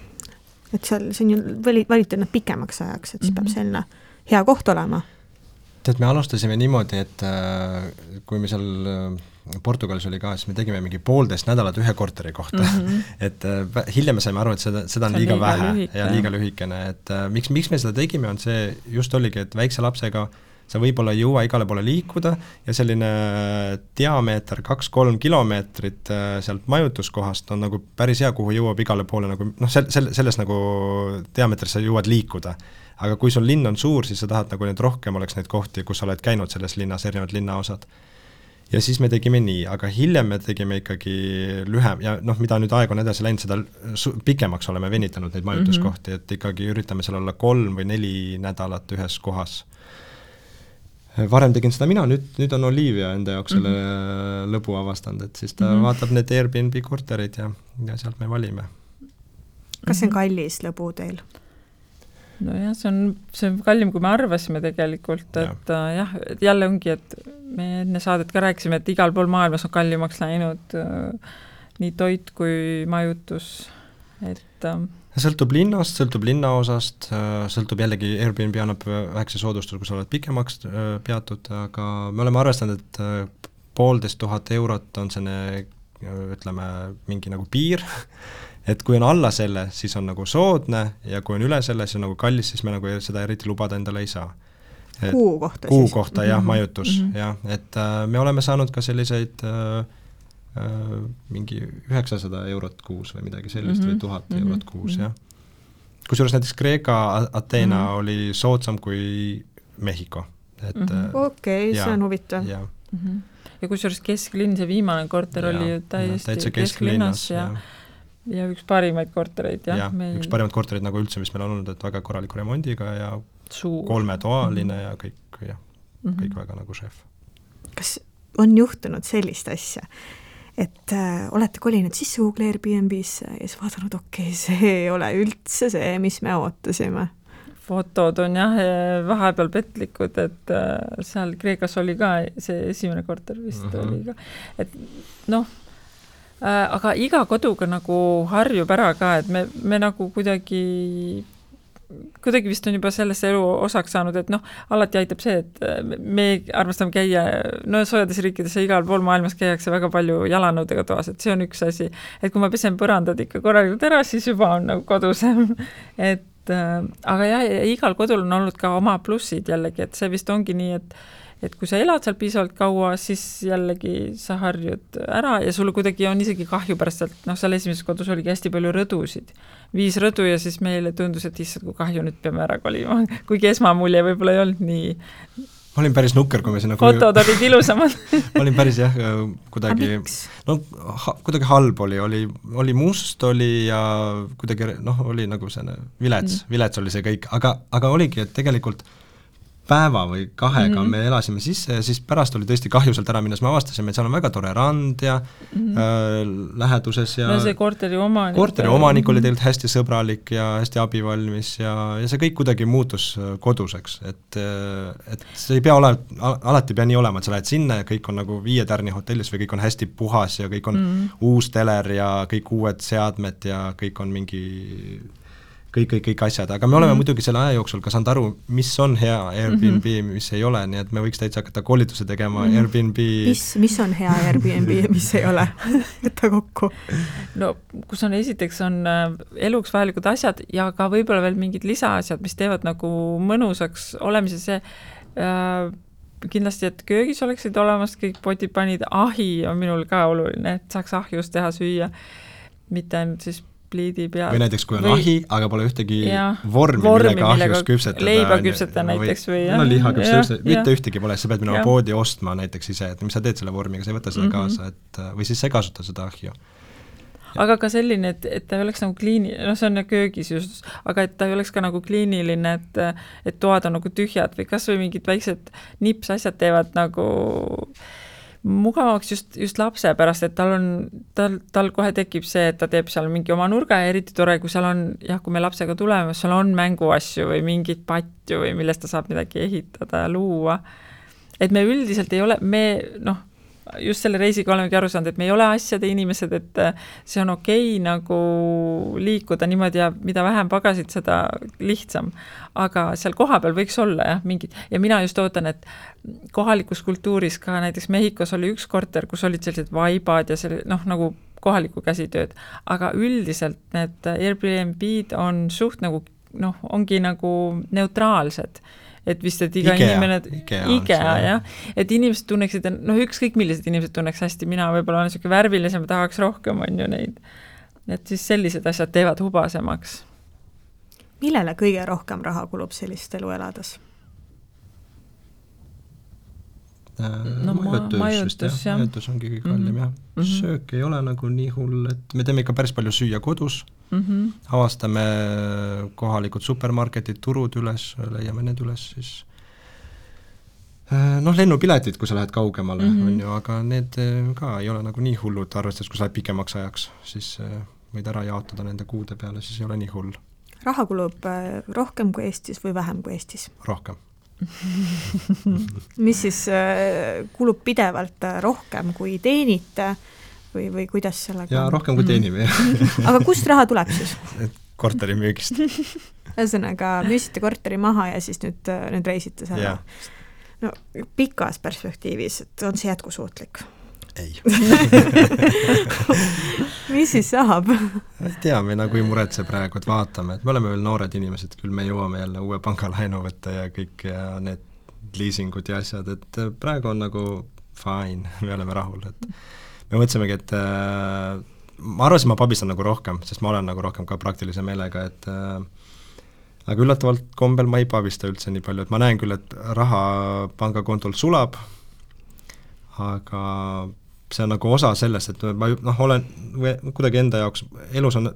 Et seal, see on ju valite nad pikemaks ajaks, et siis peab selline hea koht olema. Tead, me alustasime niimoodi, et kui me seal Portugalis oli ka, siis me tegime mingi 1,5 nädalat ühe korteri kohta. Et hiljem me saime aru, et seda on liiga vähe ja liiga lühikene. Et miks me seda tegime, on see just oligi, et väikse lapsega sa võib-olla ei jõua igale poole liikuda ja selline diameeter 2-3 kilomeetrit sealt majutuskohast on nagu päris hea, kuhu jõuab igale poole nagu, selles nagu diameetris sa jõuad liikuda. Aga kui sul linn on suur, siis sa tahad nagu need rohkem oleks neid kohti, kus sa oled käinud selles linnas, erinevad linnaosad. Ja siis me tegime nii, aga hiljem me tegime ikkagi lühem ja mida nüüd aeg on edasi läinud, seda pikemaks oleme venitanud neid majutuskohti, et ikkagi üritame seal olla 3 või 4 nädalat ühes kohas. Varem tegin seda mina, nüüd on Olivia enda jaoks selle lõbu avastanud, et siis ta vaatab need Airbnb korterid ja sealt me valime. Kas see on kallis lõbu teil? No jah, see on kallim, kui me arvasime tegelikult, et jah, et jälle ongi, et me enne saadet ka rääkisime, et igal pool maailmas on kallimaks läinud nii toit kui majutus, et sõltub linnast, sõltub linnaosast, sõltub jällegi Airbnb annab väikse soodustus, kui sa oled pikemaks peatud, aga me oleme arvestanud, et 1500 eurot on selline, ütleme, mingi nagu piir, et kui on alla selle, siis on nagu soodne ja kui on üle selle, siis on nagu kallis, siis me nagu seda eriti lubada endale ei saa. Kuu kohta siis? Kuu kohta, jah, majutus, jah, et me oleme saanud ka selliseid mingi 900 eurot kuus või midagi sellist või 1000 eurot kuus, jah. Kusjuures näiteks Kreeka Ateena oli soodsam kui Mehhiko. Okei, see on huvitav. Ja kusjuures kesklinn, see viimane korter oli täiesti kesklinnas ja üks parimaid kortereid. Üks parimaid kortereid nagu üldse, mis meil on olnud, et väga korraliku remondiga ja 3-toaline ja kõik väga nagu šef. Kas on juhtunud sellist asja, et olete kolinud sisse Google Airbnb-sse ja siis vaadanud, see ei ole üldse see, mis me ootasime? Fotod on jah vahepeal petlikud, et seal Kreekas oli ka see esimene korter vist oli ka. Et aga iga koduga nagu harjub ära ka, et me nagu kuidagi vist on juba sellesse elu osaks saanud, et alati aitab see, et me armastame käia, soojades riikides ja igal pool maailmas käiakse väga palju jalanõudega toas, et see on üks asi, et kui ma pesen põrandad ikka korralikult ära, siis juba on nagu kodusem, et aga jah, igal kodul on olnud ka oma plussid jällegi, et see vist ongi nii, et kui sa elad seal piisavalt kaua, siis jällegi sa harjud ära ja sulle kuidagi on isegi kahju pärast, et seal esimeses kodus oligi hästi palju rõdusid. 5 rõdu ja siis meile tundus, et issand, kui kahju nüüd peame ära kolima. Kuigi esmamulje võib-olla ei olnud nii. Ma olin päris nukker, kui me sinna fotod olid ilusamad. Ma olin päris jah, kuidagi kuidagi halb oli must oli ja kuidagi oli nagu selline vilets oli see kõik, aga oligi, et tegelikult päeva või 2 me elasime sisse ja siis pärast oli tõesti kahju sealt ära minnes, me avastasime, et seal on väga tore rand ja läheduses ja see korteri omanik oli tegelikult hästi sõbralik ja hästi abivalmis ja see kõik kuidagi muutus koduseks, et see ei pea alati pea nii olema, et sa lähed sinna ja kõik on nagu 5 tärni hotellis või kõik on hästi puhas ja kõik on uus teler ja kõik uued seadmed ja kõik on mingi kõik asjad, aga me oleme muidugi selle aja jooksul ka saanud aru, mis on hea Airbnb, mis ei ole, nii et me võiks täitsa hakata koolitusi tegema Airbnb. Mis on hea Airbnb ja mis ei ole? Võtta kokku. Kus on esiteks on eluks vajalikud asjad ja ka võib-olla veel mingid lisaasjad, mis teevad nagu mõnusaks olemise see kindlasti, et köögis oleksid olemas kõik potipanid, ahi on minul ka oluline, et saaks ahjus teha süüa, mitte ainult siis pliidi peal. Või näiteks, kui on ahi, aga pole ühtegi vormi millega ahjus küpsetada. Leiba küpsetada näiteks või liha küpsetada, mitte ühtegi pole, sa pead minema poodi ostma näiteks ise, et mis sa teed selle vormiga, sa ei võta seda kaasa, või siis sa ei kasuta seda ahju. Aga ka selline, et ta ei oleks nagu see on köögis just, aga et ta ei oleks ka nagu kliiniline, et toad on nagu tühjad või kas või mingid väiksed nipsasjad teevad nagu mugavaks just lapse pärast, et tal kohe tekib see, et ta teeb seal mingi oma nurga ja eriti tore, kui seal on, kui me lapsega tuleme, seal on mänguasju või mingit patju või millest ta saab midagi ehitada ja luua. et me üldiselt ei ole, just selle reisiga olemegi aru saanud, et me ei ole asjade inimesed, et see on okei nagu liikuda niimoodi ja mida vähem pagasid, seda lihtsam. Aga seal kohapeal võiks olla mingid, ja mina just ootan, et kohalikus kultuuris ka näiteks Mehhikos oli üks korter, kus olid sellised vaibad ja selle, nagu kohaliku käsitööd, aga üldiselt need Airbnb-d on suht nagu, ongi nagu neutraalsed. Et vist, et iga inimene, IKEA, jah, et inimesed tunneksid, ükskõik millised inimesed tunneks hästi, mina võib-olla olen selline värvilisem, tahaks rohkem, on ju neid. Et siis sellised asjad teevad hubasemaks. Millele kõige rohkem raha kulub sellist elu elades? Majutus, jah. Majutus ongi kõige kallim, jah. Söök ei ole nagu nii hull, et me teeme ikka päris palju süüa kodus, avastame kohalikud supermarketid, turud üles, leiame need üles, siis lennupiletid, kui sa lähed kaugemale, on ju, aga need ka ei ole nagu nii hullud, arvestades, kui sa lähed pikemaks ajaks, siis võid ära jaotada nende kuude peale, siis ei ole nii hull. Raha kulub rohkem kui Eestis või vähem kui Eestis? Rohkem. Mis siis kulub pidevalt rohkem kui teenite või kuidas sellega? Jaa, rohkem kui teenime. Aga kust raha tuleb siis? Korteri müügist. Ühesõnaga, müüsite korteri maha ja siis nüüd reisite selle. No, pikas perspektiivis, et on see jätkusuutlik? Ei. Mis siis saab? Ei tea, me nagu ei muretse praegu, et vaatame, et me oleme veel noored inimesed, küll me jõuame jälle uue pangalaenu võtta ja kõik ja need leasingud ja asjad, et praegu on nagu fine, me oleme rahul, et me mõtlesimegi, et ma arvasin, ma pabistan nagu rohkem, sest ma olen nagu rohkem ka praktilise meelega, et aga üllatavalt kombel ma ei pabista üldse nii palju, et ma näen küll, et raha pangakontolt sulab, aga see on nagu osa sellest, et ma olen kuidagi enda jaoks, elus on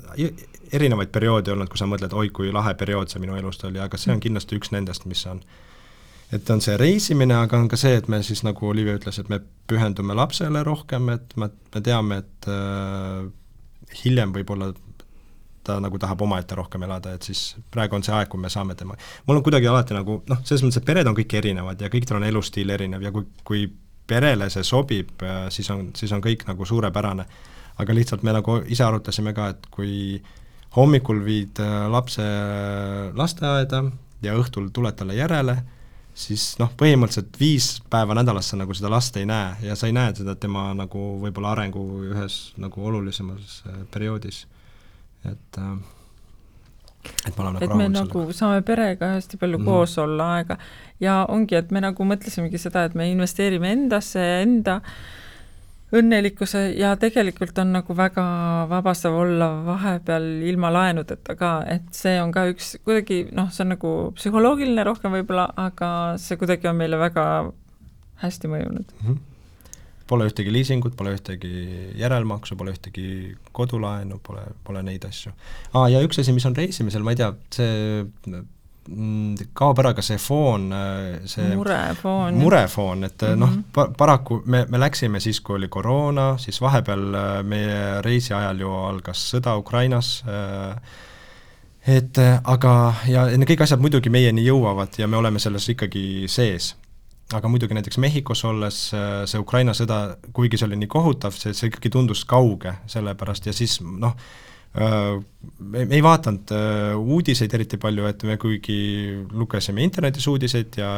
erinevaid perioode olnud, kui sa mõtled, oi kui lahe periood see minu elust oli, aga see on kindlasti üks nendest, mis on. Et on see reisimine, aga on ka see, et me siis nagu Olivia ütles, et me pühendume lapsele rohkem, et me teame, et hiljem võib-olla ta nagu tahab omaette rohkem elada, et siis praegu on see aeg, kui me saame tema. Mul on kuidagi alati nagu, selles mõttes, et pered on kõik erinevad ja kõikidel on elustiil erinev ja kui perele see sobib, siis on kõik nagu suurepärane. Aga lihtsalt me nagu ise arutasime ka, et kui hommikul viid lapse lasteaeda ja õhtul tuled talle järele, siis põhimõtteliselt 5 päeva nädalas sa nagu seda last ei näe ja sa ei näe seda tema nagu võib-olla arengu ühes nagu olulisemas perioodis. Et me oleme et me nagu saame perega hästi palju koos olla aega ja ongi, et me nagu mõtlesimegi seda, et me investeerime endasse ja enda õnnelikkuse ja tegelikult on nagu väga vabastav olla vahepeal ilma laenudeta ka, et see on ka üks kuidagi, see on nagu psühholoogiline rohkem võib-olla, aga see kuidagi on meile väga hästi mõjunud. Pole ühtegi leasingut, pole ühtegi järelmaksu, pole ühtegi kodulaenu, pole neid asju. Ja üks asi, mis on reisimisel, ma ei tea, see kaob ära ka see foon, see murefoon, et paraku me läksime siis, kui oli koroona, siis vahepeal meie reisi ajal ju algas sõda Ukrainas, aga ja kõik asjad muidugi meieni jõuavad ja me oleme selles ikkagi sees. Aga muidugi näiteks Mehhikos olles see Ukraina sõda, kuigi see oli nii kohutav, see ikkagi tundus kauge sellepärast ja siis me ei vaatanud uudiseid eriti palju, et me kuigi lugesime internetis uudiseid ja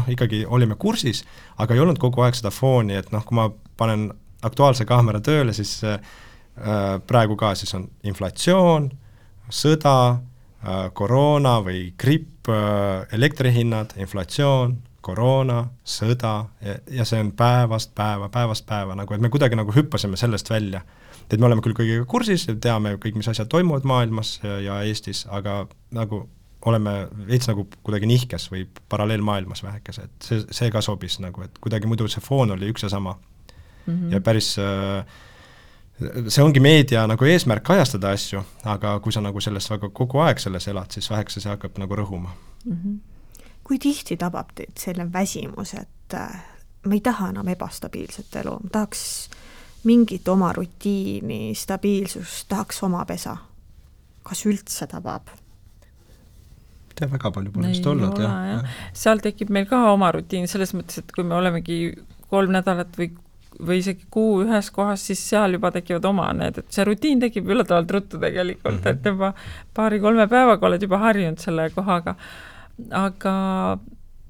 ikkagi olime kursis, aga ei olnud kogu aeg seda fooni, et kui ma panen Aktuaalse kaamera tööle, siis praegu ka siis on inflatsioon, sõda, koroona või gripp, elektrihinnad, inflatsioon, koroona, sõda ja see on päevast päeva, nagu, et me kuidagi nagu hüppasime sellest välja. Et me oleme küll kõigiga kursis ja teame kõik, mis asjad toimuvad maailmas ja Eestis, aga nagu oleme veits nagu kuidagi nihkes või paralleelmaailmas vähekes, et see ka sobis nagu, et kuidagi muidu see foon oli üks ja sama. Ja päris see ongi meedia nagu eesmärk kajastada asju, aga kui sa nagu sellest väga kogu aeg selles elad, siis vähekese see hakkab nagu rõhuma. Kui tihti tabab teid selle väsimus, et ma ei taha enam ebastabiilset elu, ma tahaks mingit oma rutiini, stabiilsust, tahaks oma pesa? Kas üldse tabab? tea, väga palju pole vist olnud. Seal tekib meil ka oma rutiin selles mõttes, et kui me olemegi 3 nädalat või isegi kuu ühes kohas, siis seal juba tekivad oma need, et see rutiin tekib üllatavalt ruttu tegelikult, et juba 2-3 päevaga oled juba harjunud selle kohaga.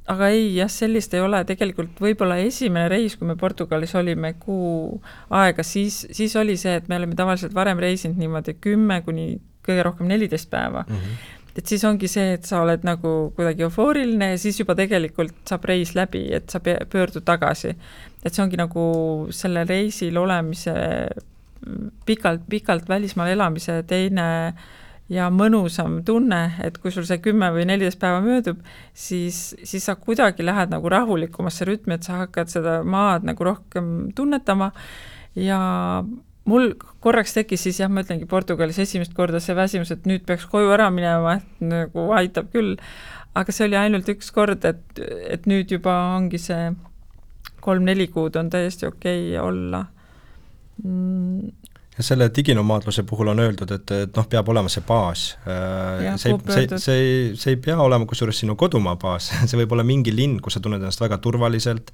Aga ei, jah, sellist ei ole. Tegelikult võib-olla esimene reis, kui me Portugalis olime kuu aega, siis oli see, et me oleme tavaliselt varem reisinud niimoodi 10 kuni kõige rohkem 14 päeva. Et siis ongi see, et sa oled nagu kuidagi eufooriline ja siis juba tegelikult saab reis läbi, et sa pöördud tagasi. Et see ongi nagu selle reisil olemise, pikalt välismaal elamise teine ja mõnusam tunne, et kui sul see 10 või 14 päeva möödub, siis sa kuidagi lähed nagu rahulikumasse rütmi, et sa hakkad seda maad nagu rohkem tunnetama ja mul korraks tekkis siis, jah, ma ütlengi Portugalis esimest korda see väsimus, et nüüd peaks koju ära minema, et nagu aitab küll, aga see oli ainult üks kord, et nüüd juba ongi see 3-4 kuud on täiesti okei olla. Ja selle diginomaadluse puhul on öeldud, et peab olema see baas. See ei pea olema kusjuures sinu kodumaa baas, see võib olla mingi linn, kus sa tunned ennast väga turvaliselt,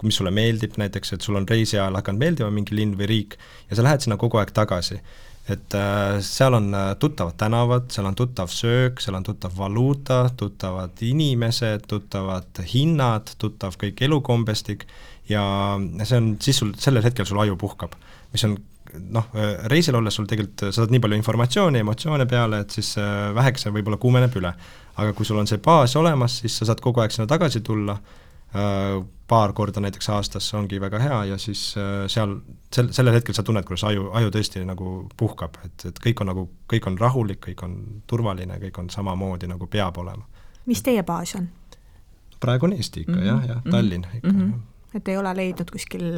mis sulle meeldib näiteks, et sul on reisi ajal hakanud meeldima mingi linn või riik ja sa lähed sinna kogu aeg tagasi. Et seal on tuttavad tänavad, seal on tuttav söök, seal on tuttav valuuta, tuttavad inimesed, tuttavad hinnad, tuttav kõik elukombestik ja see on, siis sellel hetkel sul aju puhkab, mis on reisil olles sul tegelikult saad nii palju informatsiooni, emotsioone peale, et siis väheks võib-olla kuumeneb üle. Aga kui sul on see baas olemas, siis sa saad kogu aeg sinna tagasi tulla, paar korda näiteks aastas ongi väga hea ja siis seal sellel hetkel sa tunned, kuidas aju tõesti nagu puhkab, et kõik on rahulik, kõik on turvaline, kõik on samamoodi nagu peab olema. Mis teie baas on? Praegu on Eesti ikka, jah, Tallinn ikka, Et ei ole leidnud kuskil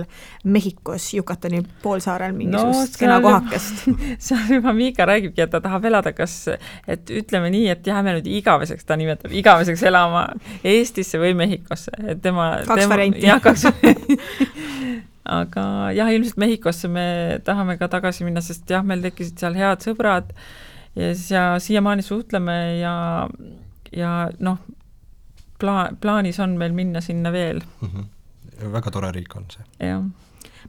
Mehhikos Yucatani poolsaarel mingisugust kena kohakest. Seal juba Miika räägibki, et ta tahab elada, et ütleme nii, et jääme nüüd igaveseks, ta nimetab igaveseks elama Eestisse või Mehhikosse. Kaks varianti. Jah, 2 varianti. Aga jah, ilmselt Mehhikosse me tahame ka tagasi minna, sest jah, meil tekkisid seal head sõbrad ja siiamaani suhtleme ja plaanis on meil minna sinna veel. Väga tore riik on see. Ja.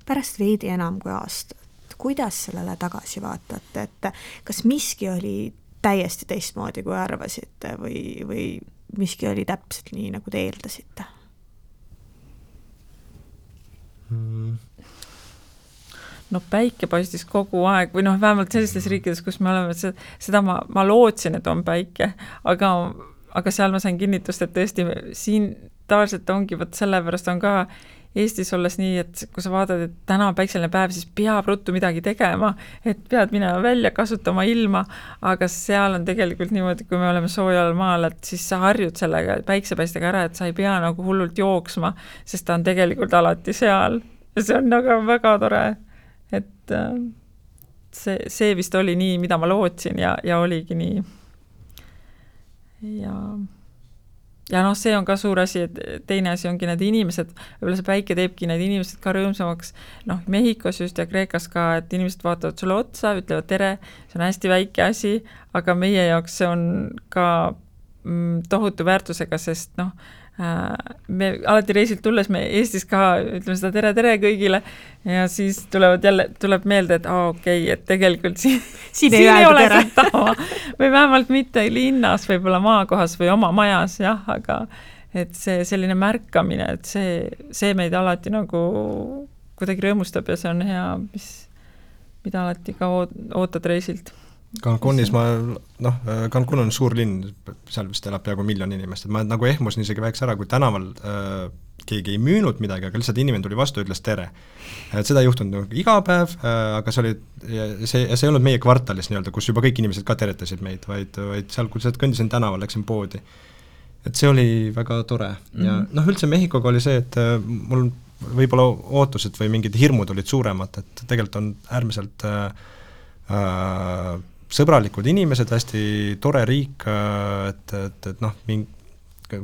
Pärast veidi enam kui aastat, kuidas sellele tagasi vaatate, et kas miski oli täiesti teistmoodi, kui arvasite või miski oli täpselt nii, nagu te eeldasite? Päike paistis kogu aeg või vähemalt sellistes riikides, kus me oleme, seda ma lootsin, et on päike, aga seal ma sain kinnitust, et tõesti siin tavaliselt ongi, sellepärast on ka Eestis olles nii, et kui sa vaatad, et täna on päikseline päev, siis peab ruttu midagi tegema, et pead minema välja, kasutama ilma, aga seal on tegelikult niimoodi, kui me oleme soojal maal, et siis sa harjud sellega päiksepaistega ära, et sa ei pea nagu hullult jooksma, sest ta on tegelikult alati seal. See on nagu väga tore, et see vist oli nii, mida ma lootsin ja oligi nii. Ja see on ka suur asi, et teine asi ongi need inimesed, võib-olla see päike teebki need inimesed ka rõõmsamaks, Mehhikos just ja Kreekas ka, et inimesed vaatavad sulle otsa, ütlevad tere, see on hästi väike asi, aga meie jaoks see on ka tohutu väärtusega, sest me alati reisilt tulles me Eestis ka ütleme seda tere kõigile ja siis tuleb meelde, et okei, et tegelikult siin ei ole seda või vähemalt mitte linnas, võib-olla maakohas või oma majas, jah, aga et see selline märkamine, et see meid alati nagu kuidagi rõõmustab ja see on hea, mida alati ka ootad reisilt. Cancunis Cancun on suur linn, seal vist elab peaaegu 1 miljon inimest, et ma nagu ehmusin isegi väheks ära, kui tänaval keegi ei müünud midagi, aga lihtsalt inimene tuli vastu ja ütles tere. Et seda ei juhtunud iga päev, aga see ei olnud meie kvartalis nii-öelda, kus juba kõik inimesed ka teretasid meid, vaid seal, kui kõndisin tänaval, läksin poodi. Et see oli väga tore. Ja üldse Mehhikoga oli see, et mul võib-olla ootused või mingid hirmud olid suuremad, et tegelikult on äärmiselt sõbralikud inimesed, hästi tore riik,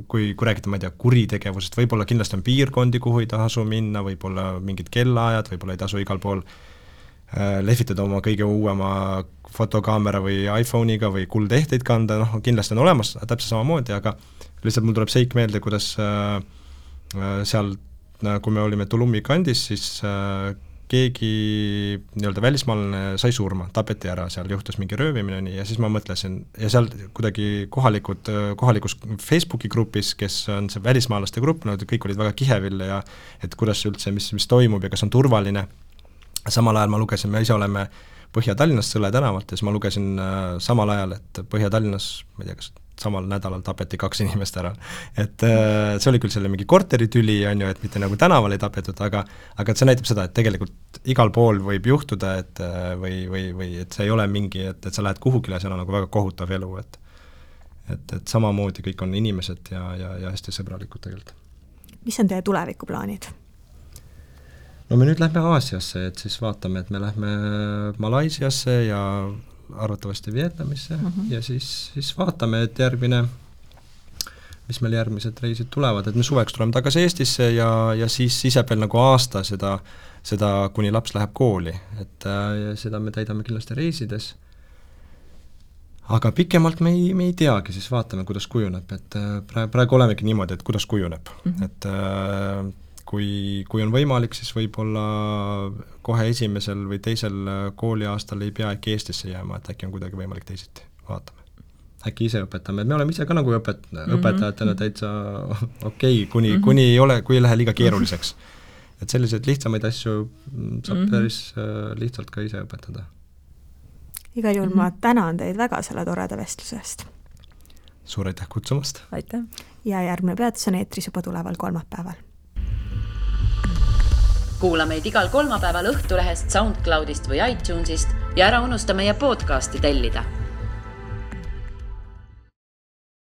kui räägite, ma ei tea, kuritegevusest, võib-olla kindlasti on piirkondi, kuhu ei tasu minna, võib-olla mingid kellaajad, võib-olla ei tasu igal pool lehvitada oma kõige uuema fotokaamera või iPhone'iga või kuldehteid kanda, kindlasti on olemas täpselt samamoodi, aga lihtsalt mul tuleb seik meelde, kuidas seal, kui me olime Tulumi kandis, siis keegi nii-öelda välismaalane sai surma, tapeti ära, seal juhtus mingi röövimine nii, ja siis ma mõtlesin, ja seal kuidagi kohalikus Facebooki grupis, kes on see välismaalaste grupp, kõik olid väga kihevil ja et kuidas üldse, mis toimub ja kas on turvaline. Samal ajal ma lugesin, me ise oleme Põhja-Tallinnas Sõle tänavalt ja siis ma lugesin samal ajal, et Põhja-Tallinnas, ma ei tea, kas samal nädalal tapeti 2 inimest ära. Et see oli küll selle mingi korteritüli, on ju, et mitte nagu tänaval ei tapetud, aga see näitab seda, et tegelikult igal pool võib juhtuda, et või et see ei ole mingi, et sa lähed kuhugile ja seal on nagu väga kohutav elu, et samamoodi kõik on inimesed ja hästi sõbralikud tegelikult. Mis on teie tulevikuplaanid? No me nüüd lähme Aasiasse, et siis vaatame, et me lähme Malaisiasse ja arvatavasti Vietnamisse ja siis vaatame, et mis meil järgmised reisid tulevad, et me suveks tuleme tagasi Eestisse ja siis ise veel nagu aasta seda kuni laps läheb kooli, et ja seda me täidame kindlasti reisides. Aga pikemalt me ei teagi, siis vaatame, kuidas kujuneb, et praegu olemegi niimoodi, et kuidas kujuneb, et kui on võimalik, siis võib-olla kohe esimesel või teisel kooliaastal ei pea äkki Eestisse jääma, et äkki on kuidagi võimalik teisiti, vaatame. Äkki ise õpetame, me oleme ise ka nagu õpetajatena täitsa okei, kuni kui ei lähe liiga keeruliseks. Et selliseid lihtsamaid asju saab päris lihtsalt ka ise õpetada. Igal juhul ma tänan teid väga selle toreda vestlusest. Suur aitäh kutsumast! Aitäh! Ja järgmine peatus on eetris juba tuleval kolmapäeval. Kuula meid igal kolmapäeval Õhtulehest, SoundCloudist või iTunesist ja ära unusta meie podcasti tellida.